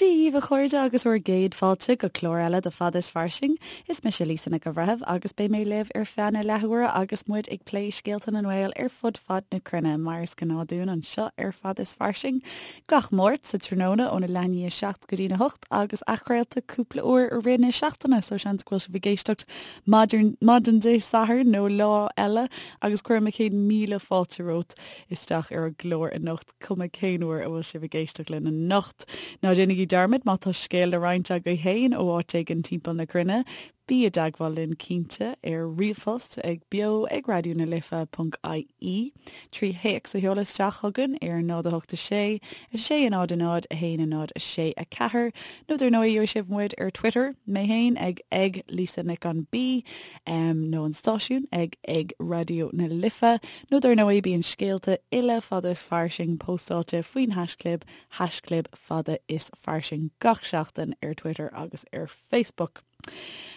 Dia dhaoibh a chairde agus bhur gcéad fáilte go clár eile de Fada is Fairsing. Is mise Lisa Nic an Bhreithimh agus beidh mé libh ar feadh na leathuaire agus muid ag plé scéalta na nGael ar fud fad na cruinne mar is gnáth dúinn anseo ar Fada is Fairsing gach Máirt sa tráthnóna óna leath i ndiaidh 7 go dtína 8 agus athchraolta cúpla uair i rith na seachtaine so seans go bhfuil sibh ag éisteacht maidin Dé Sathairn nó lá eile agus cuirim mo chéad míle fáilte romhat isteach ar an gclár anocht. cuma cén uair a bhfuil sibh ag éisteacht linn anocht. Ná déanaigí dearmad má tá scéal le roinnt agaibh féin ó áit éigin timpeall na cruinne, bí i dteagmháil linn cinnte ar ríomhphost ag beo ag raidió na life ponc ie, trí théacs a sheoladh isteach chugainn ar 0 8 6 6 0 0 1 0 6 4 nó dar ndóigh gheobhaidh sibh muid ar Twitter, mé féin ag ag Lisa Nic an B nó an stáisiún ag ag Raidió na Life. Nó dar ndóigh bíonn scéalta uile Fada is Fairsing póstáilte faoin haischlib, haischlib Fada is Fairsing gach seachtain ar Twitter agus ar Facebook.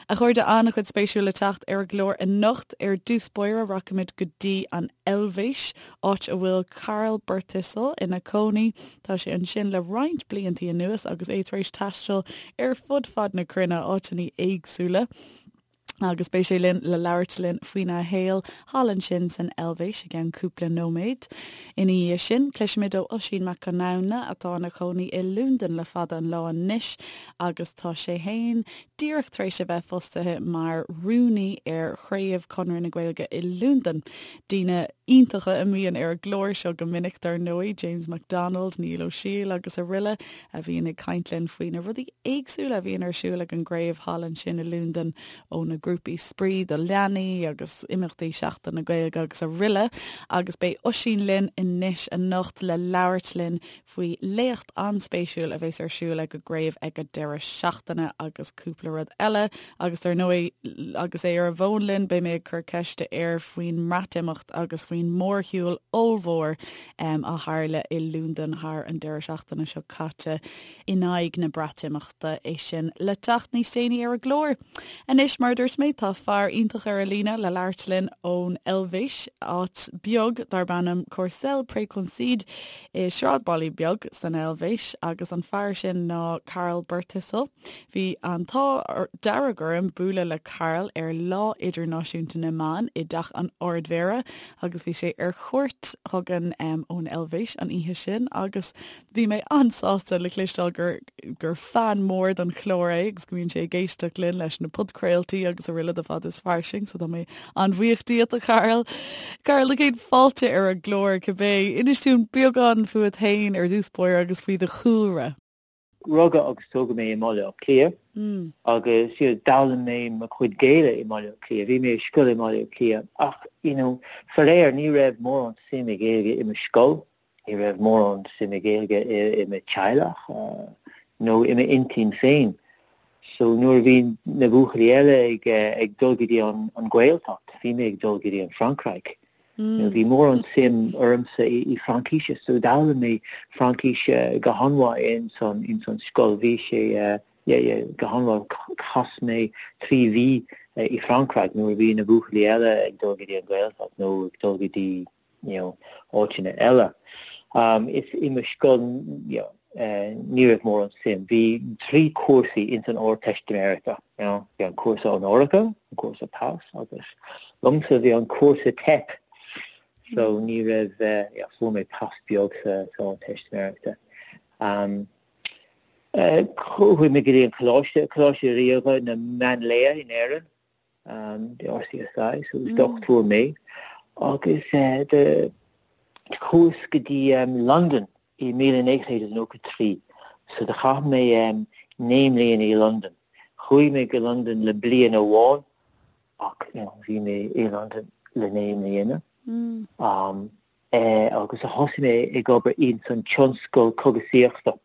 A chairde, an-chuid spéisiúil le teacht ar an gclár anocht. Ar dtús báire rachaimid go dtí an Eilvéis, áit a bhfuil Karl Birthistle ina cónaí. Tá sé ansin le roinnt bliantaí anuas agus é tar éis taisteal ar fud fad na cruinne, áiteanna éagsúla. agus beidh sé linn le labhairt linn faoina shaol thall ansin san Eilvéis i gceann cúpla nóiméad. Ina dhiaidh sin, cloisfimid ó Oisín Mac Conamhna atá ina chónaí i Londain le fada an lá anois agus tá sé fhéin díreach tar éis a bheith fostaithe mar rúnaí ar chraobh Chonradh na Gaeilge i Londain. Daoine iontacha a mbíonn ar an gclár seo go minic dar ndóigh, James McDonald, Niall Ó Siail agus araile. a bhíonn ag caint linn faoi na rudaí éagsúla a bhíonn ar siúl ag an gcraobh thall ansin i Londain, ó na grúpaí spraoi do leanaí agus imeachtaí Seachtain na Gaeilge agus araile. Agus beidh Oisín linn anois anocht le labhairt linn faoi léacht an-spéisiúil a bheas ar siúl ag an gcraobh ag an deireadh seachtaine agus cúpla rud eile. Agus dar ndóigh, agus é ar an bhfón linn, beidh mé ag cur ceiste air faoin mBreatimeacht agus faoin mórshiúl ollmhór a tharla i Londain thar an deireadh seachtaine seo caite in aghaidh na Breatimeachta, é sin le teacht níos déanaí ar an gclár. Anois, mar a dúirt mé, tá fear iontach ar an líne le labhairt linn ón Eilvéis, áit beag darb ainm Corcelles près Concise i sráidbhaile beag san Eilvéis, agus an fear sin ná Karl Birthistle. Bhí an t-ádh dearg orm bualadh le Karl ar Lá Idirnáisiúnta na mBan i dTeach an Ardmhéara agus bhí sé ar cuairt chugainn ón Eilvéis an oíche sin agus bhí mé an-sásta le cloisteáil gur gur fan mór don chlár é agus go mbíonn sé ag éisteacht linn leis na podchraoltaí agus araile de Fada is Fairsing so tá mé an-bhuíoch díot a Karl. Karl, do chéad fáilte ar an gclár cibé. Inis dúinn beagán fúat féin ar dtús báire agus faoi do chúlra. Rugadh agus tógadh mé i mBaile Átha Cliath agus you know d'fhoghlaim mé mo chuid Gaeilge i mBaile Átha Cliath. Bhí mé i scoil i mBaile Átha Cliath ach you know faraor ní raibh mórán suim i Gaeilge i mo scoil, ní raibh mórán suim i Gaeilge i i mo teaghlach nó i m'intinn féin. So nuair a bhí na buachaillí eile ag ag dul go dtí an an Ghaeltacht, bhí mé ag dul go dtí an Francraic. Bhí mórán suim ormsa i Fraincíse so d'fhoghlaim mé Fraincís go han-mhaith ins an ins an scoil. Bhí sé yeah yeah go han-mhaith. Chas mé 3 mhí i Francraic nuair a bhí na buachaillí eile ag dul go dtí an Ghaeltacht nó ag dul go dtí you know áiteanna eile. Is i mo scoil you know ní raibh mórán suim. Bhí 3 cúrsaí ins an Ardteistiméireachta, you know, bhí an cúrsa onóracha, an cúrsa pas agus liomsa bhí an cúrsa teip. So ní raibh, yeah, fuair mé pas beag sa sa Ardteistiméireachta. Um, chuaigh mé go dtí an coláiste, Coláiste Ríoga na Máinlia in Éirinn. the RCSI, so is dochtúir mé, agus do chuas go dtí Londain i 1993, so do chaith mé 9 mbliana i Londain. Chuaigh mé go Londain le bliain amháin ach you know bhí mé i Londain le 9 mbliana. Agus thosaigh mé ag obair ins an tionscal cógaisíochta.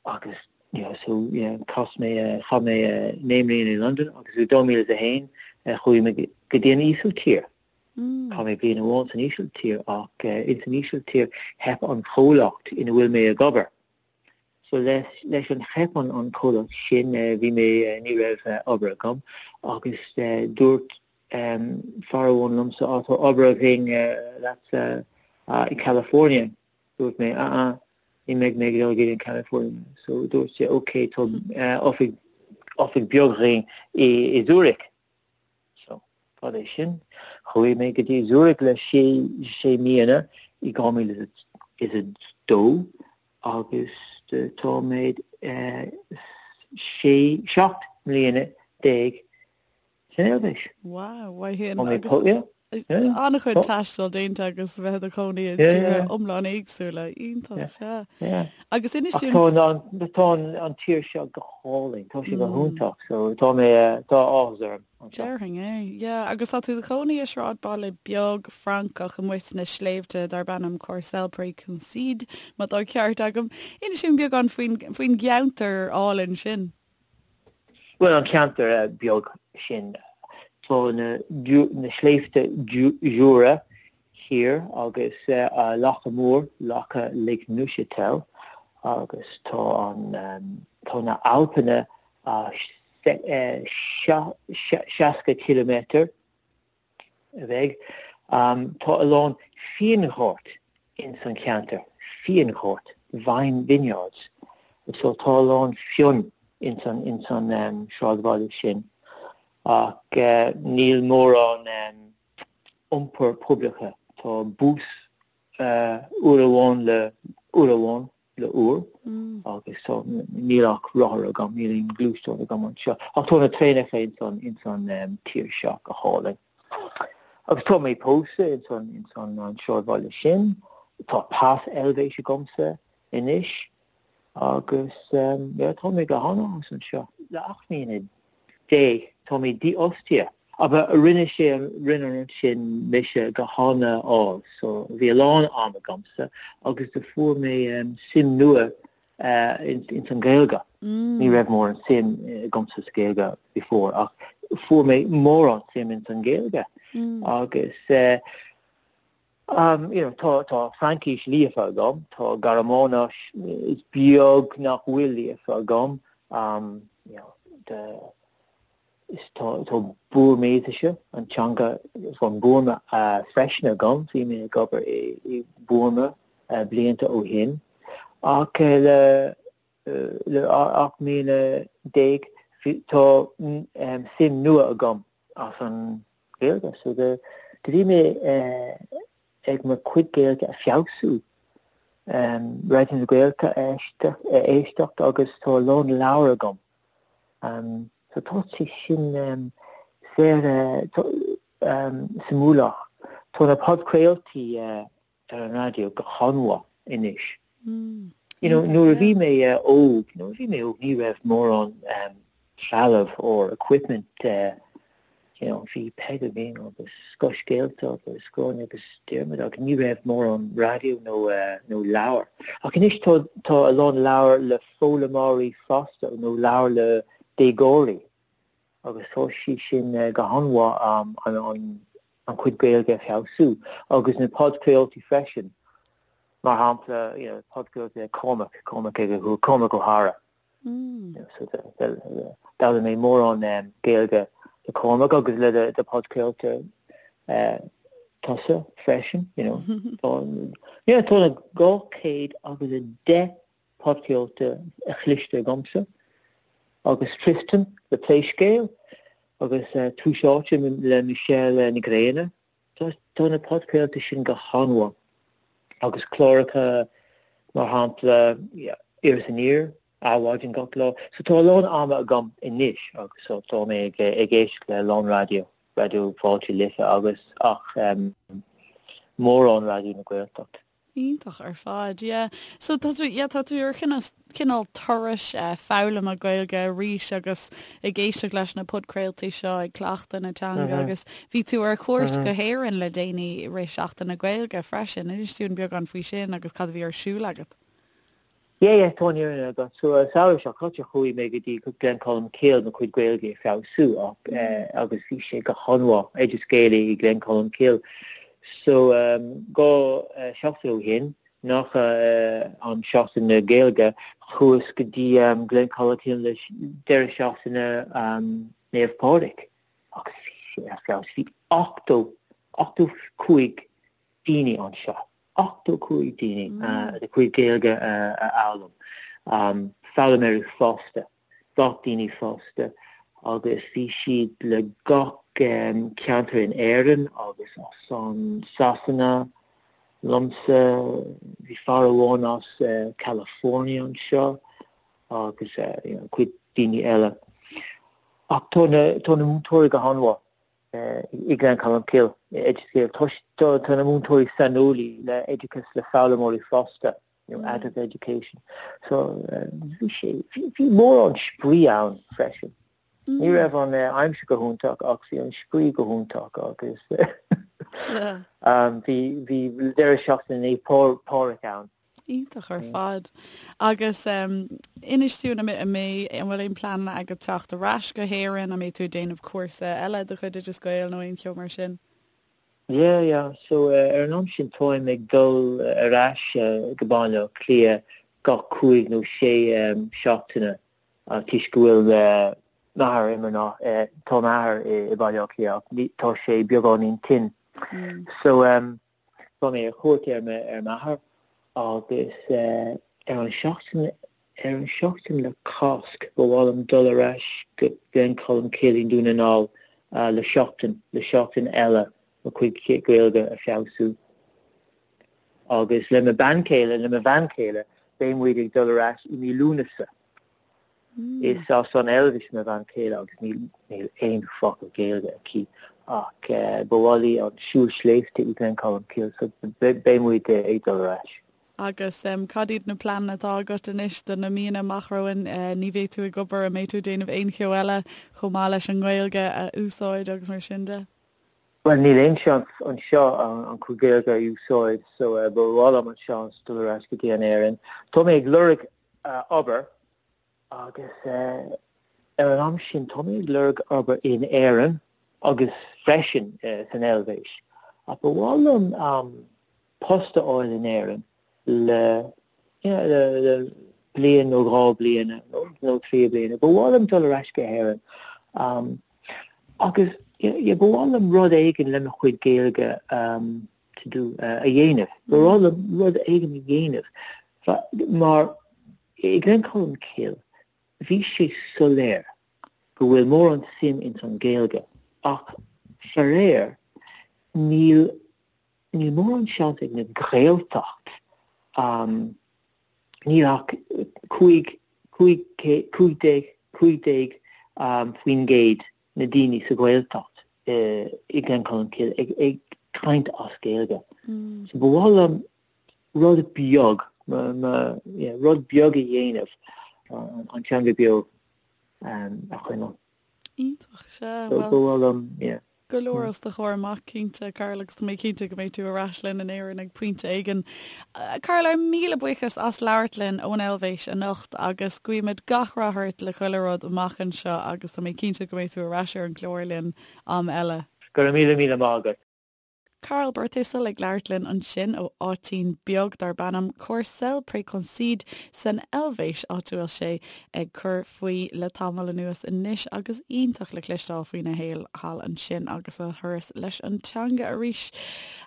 Agus you know so yeah chas mé chaith mé 9 mbliana i Londain agus i 2001 chuaigh mé go dtí an Ísiltír. Chaith mé bliain amháin san Ísiltír ach ins an Ísiltír theip an chomhlacht ina bhfuil mé ag obair. So leis leis an theip an an chomhlacht sin bhí mé ní raibh obair agam agus dúirt fear amháin liomsa á tá obair againn leatsa i California. Dúirt mé ah ah. ní mbeidh mé ag dul go dtí an California. So dúirt sé ok tá oifig oifig beag againn i i Zurich. So cad é sin? Chuaigh mé go dtí Zurich le sé sé míonna i 2002 agus tá mé sé 17 mbliana san Eilvéis. Wow, mhaith sin. Agus an-chuid taistil déanta agus bheith i do chónaí i dtíortha iomlán éagsúla. Iontach, sea. Agus inis dúinn... Tá an tír seo go hálainn, tá sé go hiontach, so tá mé, tá áthas orm. Déarfainn é, yeah. Agus tá tú i do chónaí i sráidbhaile beag Francach amuigh sna sléibhte darb ainm Corcelles-près-Concise, má tá ceart agam. Inis dúinn beagán faoin gceantar álainn sin. Bhuel, an ceantar beag sin, tá na sléibhte Jura thiar agus loch mór, loch Lake Neuchâtel, agus tá an, tá na Alpanna 60 ciliméadar a bheidh. Tá a lán fíonghort ins an cheantar, fíonghort, vine vineyards, so tá a lán fion ins an ins an sráidbhaile sin. Ach níl mórán iompar poiblithe, tá bus uair amháin le uair amháin le uair agus so níl ach rothar agam, níl aon gluaisteán agam anseo. Ach tá na traenacha ins an ins an tír seo go hálainn. Agus tá mé pósta ins an ins an an sráidbhaile sin, tá pas Eilvéis agamsa anois agus yeah tá mé go han-áthas anseo. Le 18 mbliana tá mé dífhostaithe. Ach rinne sé rinne an rud sin mise go han-ádhúil so bhí a lán am agamsa agus do fuair mé suim nua ins an Ghaeilge. Ní raibh mórán suim agamsa sa Ghaeilge before ach fuair mé mórán suim ins an Ghaeilge agus you know tá tá Fraincis líofa agam, tá Gearmáinis is beag nach bhfuil líofa agam you know the is tá tá Burmaisise, an teanga von Burma freisin agam, bhí mé ag obair i i Burma blianta ó shin ach le le 18 mbliana tá suim nua agam as an Ghaeilge. So do bhí mé ag mo chuid Gaeilge a feabhsú, Raidió na Gaeltachta a éisteacht agus tá a lán leabhar agam. So tá sé sin saor suimiúlach. Tá na podchraoltaí ar an raidió go han-mhaith anois. You know, nuair a bhí mé óg, nuair a bhí mé óg ní raibh mórán trealamh or equipment you know, bhí Peig againn agus Scothscéalta agus Gráinne agus Diarmuid agus ní raibh mórán raidió nó nó leabhar. Ach anois tá tá a lán leabhar le foghlaimeoirí fásta nó leabhar le déagóirí agus tá sí sin go han-mhaith an an an chuid Gaeilge a feabhsú agus na podchraoltaí freisin, mar shampla, you know, podchraoltaí le Cormac, Cormac ag Cormac Ó hEára. So d'fhoghlaim mé mórán Gaeilge le Cormac agus le do podchraolta tusa freisin, you know. Tá, yeah, tá na 210 podchraolta a chloiste agamsa agus Tristan le Pléscéal agus Tús Áite le Michelle Ní Ghrianna. Tá na podchraolta sin go han-mhaith agus cláracha mar shampla Iris Aniar, Adhmhaidin gach lá. So tá a lán ama agam anois agus so tá mé ag éisteacht le a lán raidió, Raidió Fáilte Life agus ach mórán Raidió na Gaeltacht. Iontach ar fad, yeah. So tá tú, yeah, tá tú ar chineál turais foghlama Gaeilge arís agus ag éisteacht leis na podchraoltaí seo, ag cleachtadh na teanga agus bhí tú ar chuairt go hÉirinn le déanaí i rith Seachtain na Gaeilge freisin. Inis dúinn beagán faoi sin agus cad a bhí ar siúl agat. Yeah, yeah, tá an fhírinne agat. So, an samhradh seo caite chuaigh mé go dtí Glencolmcille mo chuid Gaeilge a feabhsú ach agus bhí sé go han-mhaith, Oideas Gael i Glencolmcille. So, 2 seachtain ó shin, nach an Seachtain na Gaeilge, chuas go dtí Glencolmcille le deireadh seachtaine Naomh Pádraig agus bhí sé ar feabhas. Bhí 80, 85 daoine anseo. 85 daoine a gcuid Gaeilge a fhoghlaim, foghlaimeoirí fásta, gach daoine fásta agus bhí siad le gach ceantar in Éirinn agus as an Sasana liomsa, bhí fear amháin as California anseo agus cuid daoine eile. Ach tá na tá na múinteoirí go han-mhaith i Gleann Cholm Cille, i Oideas Gael. Tá tá na múinteoirí saineolaí le oideachas le foghlaimeoirí fásta, you know, adult education. So bhí sé bhí mórán spraoi ann freisin. Ní raibh an aimsir go hiontach ach bhí an spraoi go hiontach agus bhí bhí deireadh seachtaine Naomh Pádraig ann. Iontach ar fad. Agus inis dúinn an mbeidh, an bhfuil aon pleananna agat teacht ar ais go hÉirinn, an mbeidh tú ag déanamh cúrsa eile de chuid Oideas Gael nó aon cheo mar sin? Yeah, yeah. So ar an am sin táim ag dul ar ais go Baile Átha Cliath gach cúig nó sé seachtaine toisc go bhfuil m'athair i mo, tá m'athair i Baile Átha Cliath ach tá sé beagáinín tinn. So tá mé ar chuairt ar m'athair agus ar an seachtain ar an seachtain le Cásc ba mhaith liom dul ar ais go Gleann Cholm Cille i nDún na nGall le seachtain le seachtain eile mo chuid Gaeilge a feabhsú. Agus le mo bean chéile, le mo bhean chéile, beidh muid ag dul ar ais i mí Lúnasa. Is as an Eilvéis mo bhean chéile agus níl níl aon focal Gaeilge aici ach ba mhaith léi an siúl sléibhte i Gleann Cholm Cille so beidh muid ag dul ar ais. Agus cad iad na pleananna atá agat anois do na míonna amach romhainn? Ní bheidh tú ag obair, an mbeidh tú ag déanamh aon cheo eile chomh maith leis an nGaeilge a úsáid agus mar sin de? Bhuel, níl aon seans anseo an chuid Gaeilge a úsáid so ba mhaith liom an seans dul ar ais go dtí an Éirinn. Tá mé ag lorg obair agus ar an am sin tá mé ag lorg obair in Éirinn agus freisin san Eilvéis. Ach ba mhaith liom post a fháil in Éirinn le le bliain nó dhá bliana nó trí bliana. Ba mhaith liom dul ar ais go hÉirinn agus ba mhaith liom rud éigin le mo chuid Gaeilge to do a dhéanamh. Ba mhaith liom rud éigin a dhéanamh mar i Gleann Cholm Cille bhí sé soiléir go bhfuil mórán suim ins an Ghaeilge ach faraor níl Níl mórán seans ag na Gaeltacht, níl ach 15, 15% na daoine sa Ghaeltacht i Gleann Cholm Cille ag caint as Gaeilge. So ba mhaith liom rud beag, rud beag a dhéanamh an teanga beo a choinneáil. Iontach, sea. Bhuel, ba mhaith liom, yeah. Go leor os do chomhair amach, cinnte, Karl, agus tá mé cinnte go mbeidh tú ar ais linn in Éirinn ag pointe éigin. Karl, ár míle buíochas as labhairt linn ón Eilvéis anocht agus guímid gach rath ort le chuile rud amach anseo agus tá mé cinnte go mbeidh tú ar ais ar an gclár linn am eile. Go raibh míle míle maith agat. Karl Birthistle ag labhairt linn ansin ó áitín beag darb ainm Corcelles près Concise san Eilvéis, áit a bhfuil sé ag cur faoi le tamall anuas anois agus iontach le cloisteáil faoina shaol thall ansin agus a thuras leis an teanga arís.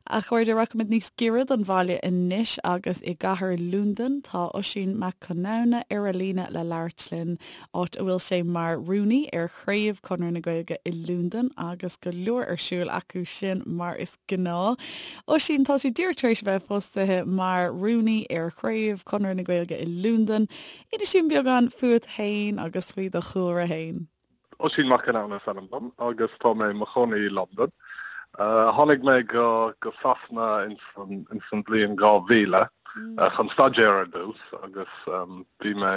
A chairde, rachaimid níos giorra don bhaile anois agus i gcathair Londain tá Oisín Mac Conamhna ar an líne le labhairt linn, áit a bhfuil sé mar rúnaí ar Chraobh Chonradh na Gaeilge i Londain agus go leor ar siúl acu sin mar is gnáth. Oisín, tá tú díreach tar éis a bheith fostaithe mar rúnaí ar Chraobh Chonradh na Gaeilge i Londain. Inis dúinn beagán fúat féin agus faoi do chúlra féin. Oisín Mac Conamhna is ainm dom agus tá mé i mo chónaí i Londain. Tháinig mé go go Sasana ins an ins an bhliain 2000 chun staidéar ar dtús agus bhí mé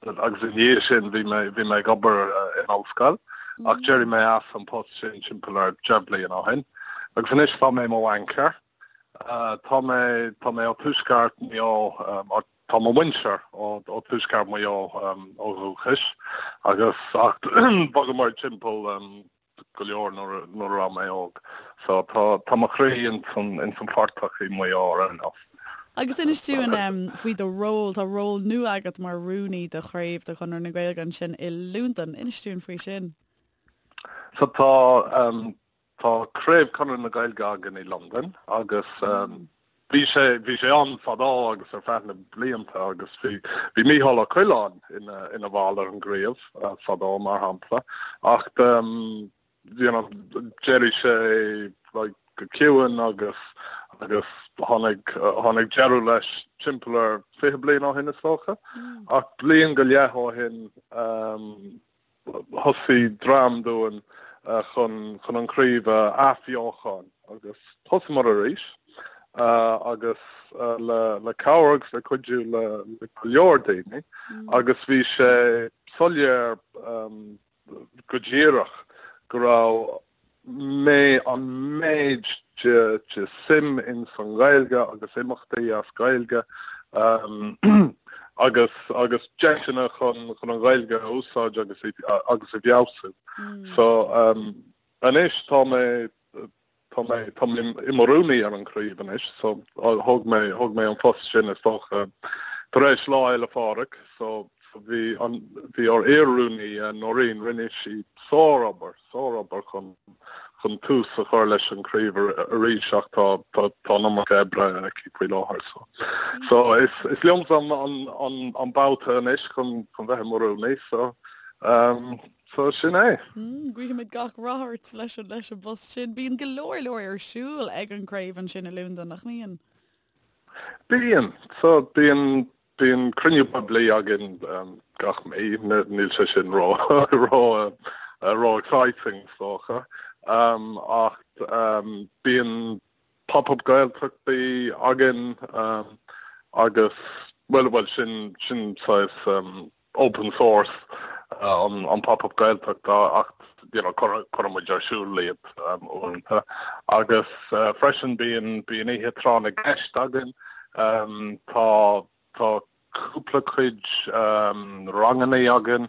Agus i ndiaidh sin bhí mé bhí mé ag obair in ollscoil ach d'éirigh mé as an post sin timpeall ar 10 bliain ó shin. Agus anois tá mé i mo bhaincéir. Tá mé tá mé ó tuaisceart Mhaigh Eo tá mo mhuintir ó ó tuaisceart Mhaigh Eo ó dhúchas agus ach bhogamar timpeall go leor nuair a raibh mé óg. So tá tá mo chroí ins an ins an phortach i Maigh Eo ar aon nós. Agus inis dúinn faoi do ról, tá ról nua agat mar rúnaí do chraobh de Chonradh na Gaeilge ansin i Londain. Inis dúinn faoi sin. So tá tá craobh Chonradh na Gaeilge againn i Londain agus. Bhí sé bhí sé ann fadó agus ar feadh na blianta agus bhí bhí Mícheál Ó Coileáin ina ina bhall ar an gcraobh fadó mar shampla ach you know d'éirigh sé like go ciúin agus agus tháinig tháinig deireadh leis timpeall ar 20 bliain ó shin is dócha ach bliain go leith ó shin thosaigh dream dúinn chun chun an chraobh a athbheochan agus thosaíomar arís agus le le cabhair agus le cuidiú le le go leor daoine agus bhí sé soiléir go díreach go raibh mé an méid de de suim in san Ghaeilge agus imeachtaí as Gaeilge agus agus deiseanna chun chun an Ghaeilge a úsáid agus agus a fheabhsú. So anois tá mé Tá mé, tá mé i mo rúnaí ar an chraobh anois so thóg mé, thóg mé an post sin is dócha tar éis Lá Fhéile Pádraig so bhí an, bhí ár iar-rúnaí Noreen, rinne sí sár-obair, sár-obair chun, chun tús a chur leis an chraobh arís ach tá, tá, tá an iomarca oibre aici faoi láthair so. So is, is liomsa an, an, an, an babhta anois chun, chun bheith i mo rúnaí so um, So sin é. Guímid gach rath ort leis an leis an bpost sin. Bíonn go leor leor ar siúl ag an gcraobh ansin i Londain, nach mbíonn? Bíonn. So bíonn bíonn cruinniú poiblí againn gach mí. Níl sé sin ró ró ró exciting is dócha. Ach bíonn Pop-up Gaeltachtaí againn agus bhuel bhuel sin sin saghas open source an Pop-up Gaeltacht ach you know cuireann muid ar siúl iad uaireanta. Agus freisin bíonn bíonn oíche tráth na gceist againn. Tá tá cúpla cuid ranganna againn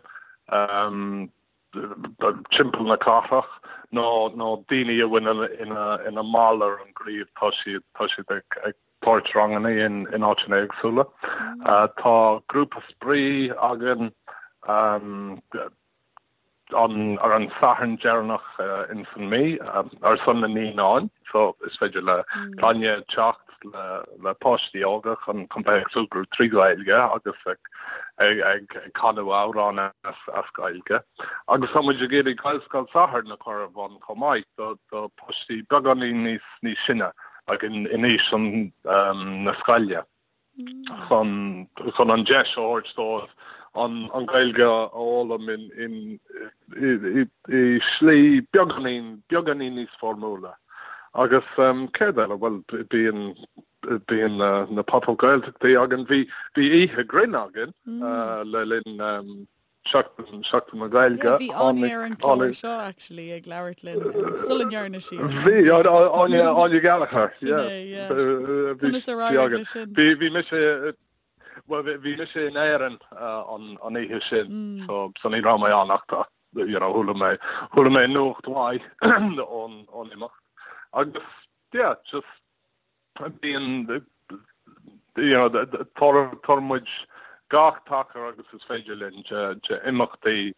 timpeall na cathrach nó nó daoine a bhfuil ina ina mball ar an gcraobh tá siad tá siad ag ag tabhairt ranganna in áiteanna éagsúla. Tá grúpa spraoi againn ar an Satharn deireanach ins an mí ar son na naíonáin so is féidir le clainne teacht le páistí óga chun chun bheith ag súgradh trí Ghaeilge agus ag ag canadh amhráin as Gaeilge. Agus tá muid ag iarraidh Gaelscoil Sathairn a chur ar bun chomh maith do do páistí beagáinín níos níos sine. like in aois na scoile chun chun an deis a thabhairt dóibh an an Ghaeilge a fhoghlaim in in i i slí beagáinín beagáinín níos foirmiúla. Agus céard eile? Bhuel bíonn bíonn na na Pop-up Gaeltachtaí againn. Bhí bhí oíche grinn againn le linn Seachtain, Seachtain na Gaeilge. Yeah, bhí Áine ar an chlár seo actually ag labhairt linn sula ndearna sí. Bhí Áine Áine Gallagher. Sin é, yeah. Conas a d'éirigh leis sin? Bhí bhí mise well bhí mise in Éirinn an an oíche sin so so ní raibh mé ann ach tá you know chuala mé chuala mé nuacht mhaith ón ón imeacht. Agus yeah just Bíonn, you know, tabharann muid gach tacar agus is féidir linn de imeachtaí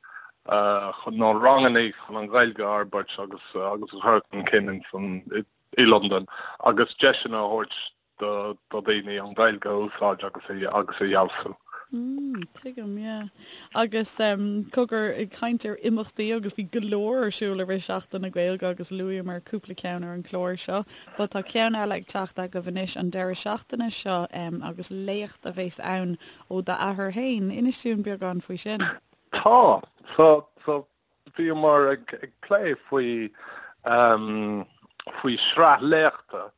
chun nó ranganna chun an Ghaeilge a fhorbairt agus agus a chur chun cinn in san i Londain agus deiseanna a thabhairt do do dhaoine an Ghaeilge a úsáid agus a agus a fheabhsú. Mm, tuigim, yeah. Agus um, cogar ag caint ar imeachtaí agus bhí go leor ar siúl i rith Seachtain na Gaeilge agus luaíomar cúpla ceann ar an chlár seo. But tá ceann eile ag teacht agaibh anois an deireadh seachtaine seo um, agus léacht a bheas ann ó d'athair féin. Inis dúinn beagán faoi sin. Tá, so, so Bhíomar ag plé faoi faoi sraith léachta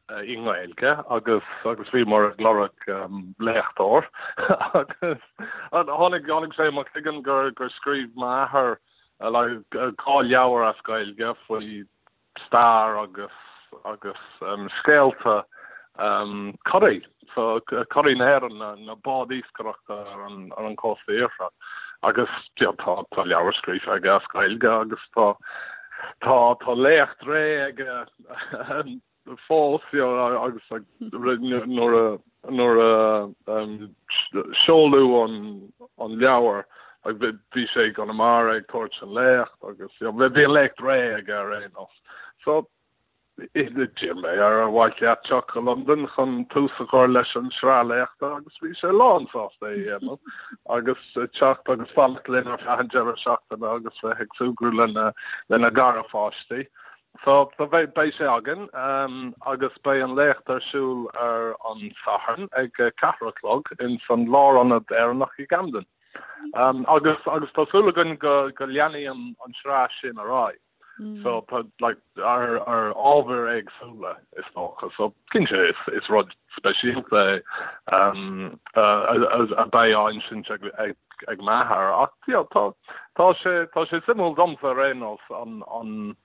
i nGaeilge agus agus bhíomar ag lorg léachtóir agus tháinig tháinig sé i mo chloigeann gur gur scríobh m'athair like 2 leabhar as Gaeilge faoi stair agus agus scéalta curaí, so curaí na hÉireann, na báid iascaireachta ar an ar an cósta iartharach. Agus tá tá leabhar scríofa aige as Gaeilge agus tá tá tá léacht réidh aige fós you know, agus nuair a nuair a seoladh an an leabhar bhí sé i gConamara ag tabhairt an léacht agus bhí an léacht réidh aige ar aon nós. So. D'iarr mé air ar mhaith leat teacht go Londain chun tús a chur leis an sraith léachta agus bhí sé lán sásta é a dhéanamh agus teacht agus fanacht linn ar feadh an deireadh seachtaine agus bheith ag súgradh lena lena gharpháistí. So so beidh beidh sé againn agus beidh an léacht ar siúl ar an Satharn ag 4 a chlog ins an Lárionad Éireannach i gCamden. Agus agus tá súil againn go go leanfaidh an an sraith sin ar aghaidh. So tá like ar ar ábhair éagsúla is dócha. So cinnte is is rud speisialta é um, a beidh á insint ag ag ag m'athair ach you know, tá tá sé tá sé suimiúil domsa ar aon nós an an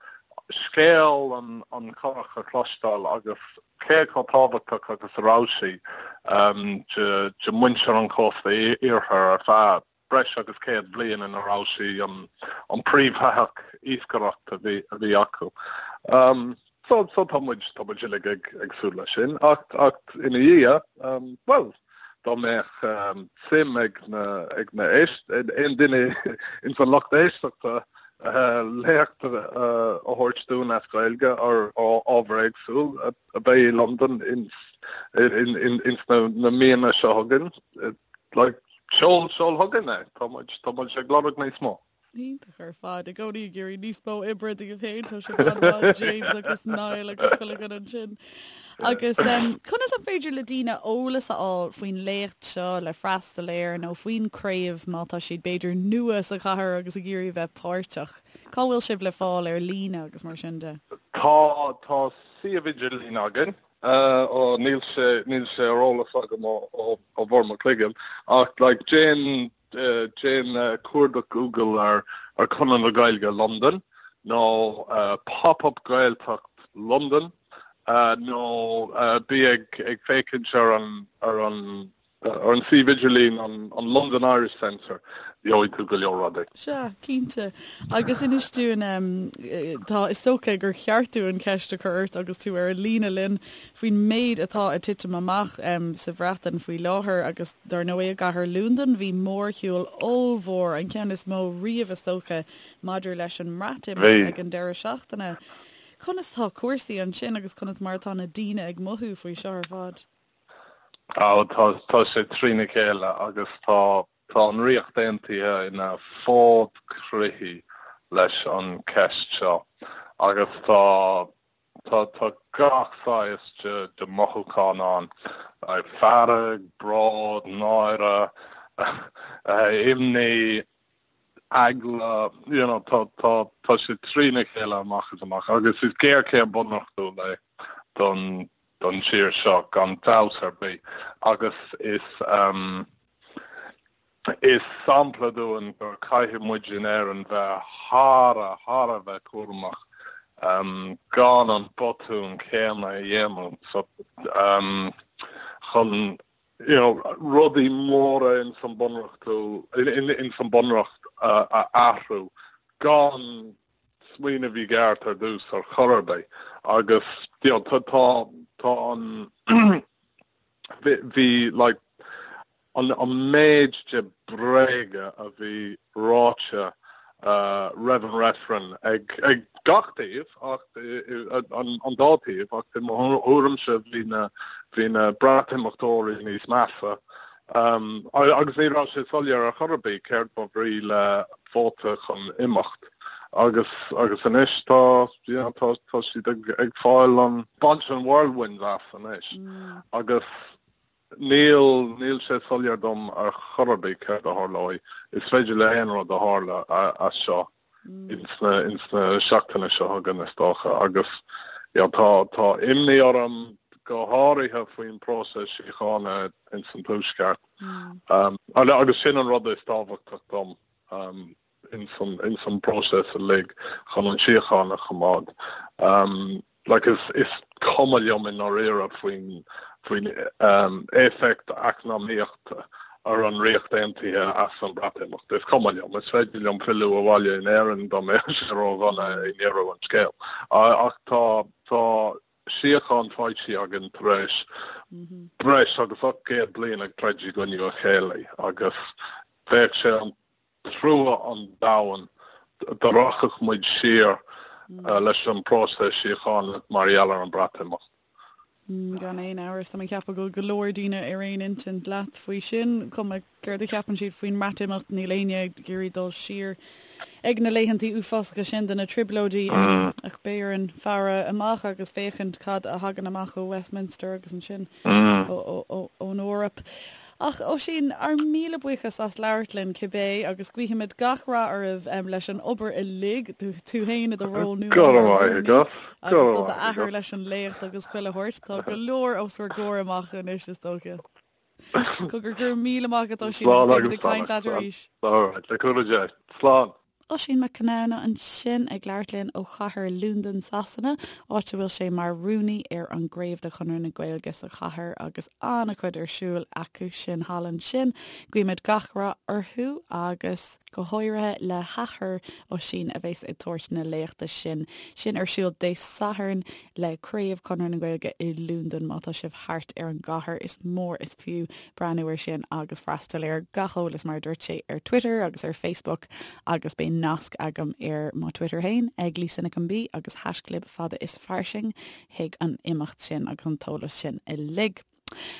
scéal an an churach a chloisteáil agus cé chomh tábhachtach agus a raibh sí um, de de muintir an chósta iarthair ar feadh breis agus 100 bliain ina raibh sí an príomhthoitheach iascaireachta a bhí acu. So so tá muid tá muid uilig ag ag súil leis sin ach ach ina dhiaidh bhuel dá mbeadh suim ag na ag na éist aon duine ins an lucht éisteachta léacht a thabhairt dúinn as Gaeilge ar ábhar éagsúil a bheidh i Londain ins ins na míonna seo chugainn like Seol, seol chugainn é. Tá muid, tá muid ag lorg níos mó. Iontach ar fad. I gcónaí ag iarraidh níos mó oibre daoibh féin, tá sibh an-mhaith, James agus Niall agus chuile dhuine ansin. Agus conas an féidir le daoine eolas a fháil faoin léacht seo le freastal air nó faoin craobh má tá siad b'fhéidir nua sa chathair agus ag iarraidh a bheith páirteach? Cá bhfuil sibh le fáil ar líne agus mar sin de? Tá, tá suíomh idirlín againn. Ó, níl sé, níl sé ar eolas agam ó, ó, ó bharr mo chloigeann, ach like déan, déan cuardach Google ar, ar Conradh na Gaeilge Londain nó Pop-up Gaeltacht London nó bí ag, ag féachaint ar an, ar an, Ar an suíomh idirlín an London Irish Centre, gheobhaidh tú go leor rudaí. Sea, cinnte. Agus inis dúinn, tá, is dócha gur cheart dúinn ceist a chur ort agus tú ar an líne linn faoin méid atá ag titim amach sa Bhreatain faoi láthair agus dar ndóigh i gcathair Londain bhí mórshiúl ollmhór, an ceann is mó riamh is dócha, maidir leis an mBreatimeacht ag an deireadh seachtaine. Conas tá cúrsaí ansin agus conas mar atá na daoine ag mothú faoi seo ar fad? Á, tá, tá sé trína chéile agus tá, tá an Ríocht Aontaithe ina fód croí leis an cheist seo agus tá, tá, tá gach saghas de, de mothúchán ann, fearg, bród, náire, imní, eagla, you know, tá, tá, tá sé trína chéile amach is amach agus is géarchéim bunreachtúil é don, don tír seo gan dabht ar bith agus is is sampla dúinn gur caithfidh muid in Éirinn bheith thar a thar a bheith cúramach gan an botún céanna a dhéanamh so chun you know rudaí móra ins an bunreachtúil ins an bunreacht a athrú gan smaoineamh i gceart ar dtús ar chor ar bith agus you know tá tá tá an bhí like an an méid de bréaga a bhí ráite uh, roimh an reifreann ag ag gach taobh ach an an dá taobh ach i mo thuairimse bhí na bhí na Breatimeachtóirí níos measa Agus ní raibh sé soiléir ar chor ar bith céard ba bhrí le vóta chun imeacht. Agus agus anois tá you know tá tá siad ag ag fáil an baint an whirlwind as anois. Agus níl níl sé soiléir dom ar chor ar bith céard a tharlóidh. Is féidir le haon rud a tharla as seo. ins na ins na seachtaine seo chugainn is dócha agus you know, tá tá imní orm go háirithe faoin próiseas síochána ins an tuaisceart. Um, agus sin an rud is tábhachtach dom um, ins an ins an próiseas uilig chun an síocháin a choimeád. Um, Like is is cuma liom i ndáiríre faoin faoin éifeacht eacnamaíochta ar an Ríocht Aontaithe as an Breatimeacht. Is cuma liom. Is féidir liom filleadh abhaile in Éirinn dá mbeadh sé ródhona i ndeireadh an scéil. Ach tá tá síocháin faighte againn tar éis breis agus 800 bliain ag troid i gcoinne a chéile agus bheadh sé an trua an domhain dá rachadh muid siar. leis an bpróiseas síochána mar gheall ar an Breatimeacht. Gan aon amhras, tá mé ag ceapadh go bhfuil go leor daoine ar aon intinn leat faoi sin, cuma céard a cheapann siad faoin mBreatimeacht, níl éinne ag iarraidh dul siar ag na laethantaí uafásacha sin de na trioblóidí. Ach beidh orainn faire amach agus féachaint cad a thagann amach ó Westminster agus ansin ón Eoraip. Ach Oisín, ár míle buíochas as labhairt linn cibé agus guífimid gach rath oraibh leis an obair uilig, tú féin i do ról nua Go raibh maith agat. agus do d'athair leis an léacht agus chuile shórt. Tá go leor os bhur gcomhair amach anois is dócha. Cogar, go raibh míle maith agat Oisín agus beimid ag caint leat arís. All right, le cúnamh Dé. Slán. Oisín Mac Conamhna ansin ag labhairt linn ó chathair Londain, Sasana, áit a bhfuil sé mar rúnaí ar an gcraobh de Chonradh na Gaeilge sa chathair agus an-chuid ar siúl acu sin thall ansin. Guímid gach rath orthu agus go háirithe le hathair Oisín a bheas ag tabhairt na léachta sin sin ar siúl Dé Sathairn le Craobh Chonradh na Gaeilge i Londain. Má tá sibh thart ar an gcathair is mór is fiú breathnú air sin agus freastal air. Gach eolas mar a dúirt sé ar Twitter agus ar Facebook agus beidh nasc agam ar mo Twitter féin ag Lisa Nic an B agus haischlib fada is fairsing chuig an imeacht sin agus an t-eolas sin uilig.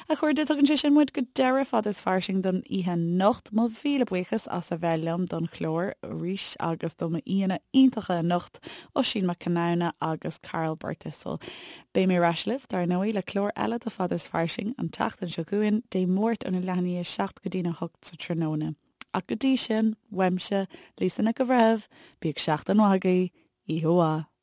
A chairde, tugann sé sin muid go deireadh Fada is Fairsing don oíche anocht. Mo mhíle buíochas as a bheith liom don chlár arís agus do m'aíonna iontacha anocht, Oisín Mac Conamhna agus Karl Birthistle. Beidh mé ar ais libh, dar ndóigh, le clár eile de Fada is Fairsing an tseachtain seo chugainn, Dé Máirt óna leath i ndiaidh a 7 go dtína 8 sa tráthnóna. Ach go dtí sin, uaimse, Lisa Nic an Bhreithimh, bíodh seachtain mhaith agaibh, oíche mhaith.